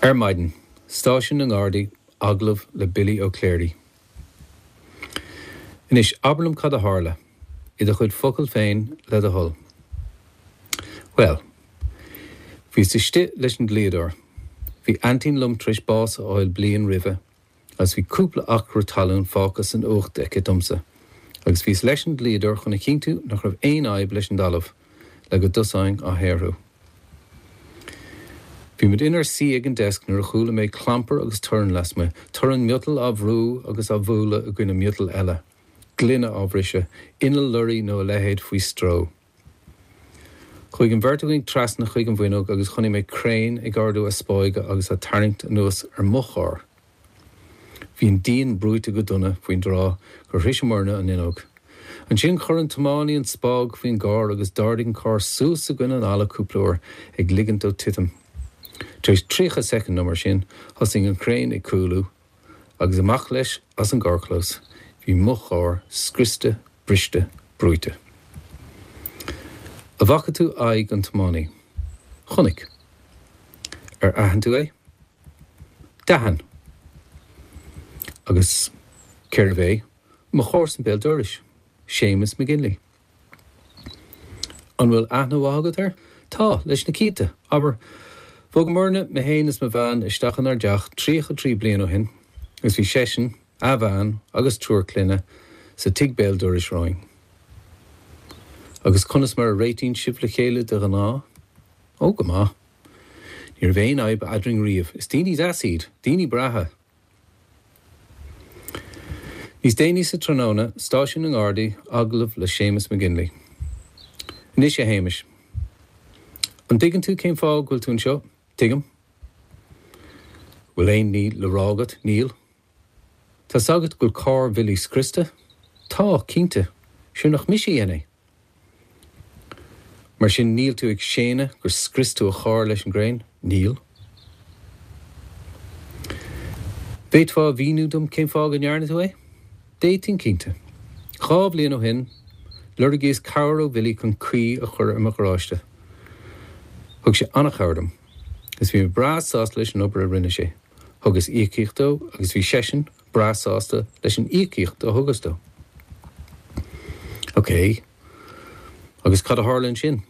Ar maidin, Stáisiún na nGardaí, agallamh le Billy Ó Cléirigh. Anois, abair liom cad a tharla, i do chuid focal féin, le do thoil. Bhuel, bhíos istigh leis an dlíodóir. Bhí aintín liom tar éis bás a fháil bliain roimhe agus bhí cúpla acra talún fágtha san uacht aici domsa, agus bhíos leis an dlíodóir chun a chinntiú nach raibh aon fhadhb leis an dtalamh, le go dtosóinn á shaothrú. Bhí muid inár suí ag an deasc nuair a chuala mé clampar agus torann lasmuigh, torann miotail á bhrú agus á bhualadh i gcoinne miotail eile, gloine á bhriseadh, inneall lorraí nó a leithéid faoi stró. Chuaigh an bheirt againn trasna chuig an bhfuinneog agus chonaic mé craein ag ardú a spáige agus á tarraingt anuas ar mo charr. Bhí an díon brúite go dona faoin dtráth gur shroiseamarna an fhuinneog. Ansin chuir an tiománaí an spág faoin gcarr agus d'ardaigh an carr suas i gcoinne an fhalla cúpla uair, ag ligint dó titim. Tar éis 30 soicind nó mar sin, thosaigh an chraein ag cúlú agus amach leis as an gcarrchlós. Bhí mo charr scriosta, briste, brúite. An bhfaca tú aghaidh an tiománaí? Chonaic. Ar aithin tú é? D'aithin. Agus cérbh é? Mo chomharsan béal dorais, Séamus McGinley. An bhfuil aithne mhaith agat air? Tá, leis na cianta. Abair, bhogamarna, mé féin is mo bhean, isteach inár dteach 33 bliain ó shin agus bhí seisean, a bhean agus triúr clainne sa tigh béal dorais romhainn. Agus conas mar a réitíonn sibh le chéile de ghnáth? Ó, go maith. Ní raibh aon fhadhb eadrainn riamh. Is daoine deasa iad. Daoine breátha. Níos déanaí sa tráthnóna, Stáisiún na nGardaí, agallamh le Séamus McGinley. Anois a Shéamais. An dtuigeann tú cén fáth go bhfuil tú anseo? Tuigim. Bhfuil aon ní le rá agat? Níl. Tá's agat go bhfuil carr Bhilly scriosta? Tá, cinnte. Sure nach mise a dhein é. Mar sin níl tú ag séanadh gur scrios tú a charr leis an gcraein? Níl. Bhféadfá a mhíniú dom cén fáth go ndearna tú é? D'fhéadfainn, cinnte. 2 bhliain ó shin, lorgaíos cabhair ó Bhilly chun caoi a chur ar mo gharáiste. Thug sé an-chabhair dom, agus bhí mé breá sásta leis an obair a rinne sé. Thugas íocaíocht dó agus bhí seisean breá sásta leis an íocaíocht a thugas dó. Ok. Agus cad a tharla ansin?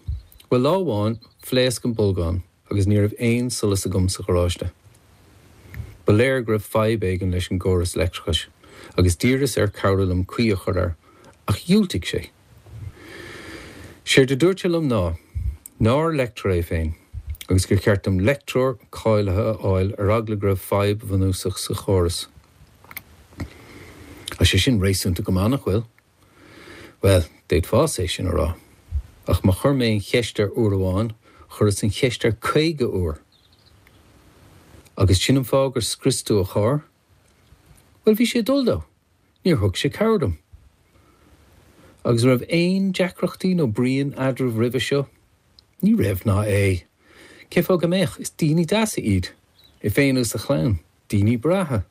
Bhuel, lá amháin, phléasc an bolgán agus ní raibh aon solas agam sa gharáiste. Ba léir go raibh fadhb éigin leis an gcóras leictreachais agus d'iarras air cabhrú liom caoi a chur air, ach dhiúltaigh sé. Séard a dúirt sé liom ná nár leictreoir é féin agus gur cheart dom leictreoir cáilithe a fháil ar eagla go raibh fadhb bhunúsach sa chóras. Tá sé sin réasúnta go maith, nach bhfuil? Bhuel, d'fhéadfása é sin a rá. Ach má chuir mé an cheist air uair amháin, chuireas an cheist air 50 uair. Agus sin an fáth gur scrios tú a charr? Bhuel, bhí sé ag dul dó. Níor thug sé cabhair dom. Agus an raibh aon deacrachtaí nó bruíon eadraibh roimhe seo? Ní raibh ná é. Cén fáth go mbeadh? Is daoine deasa iad. É féin agus a chlann. Daoine breátha.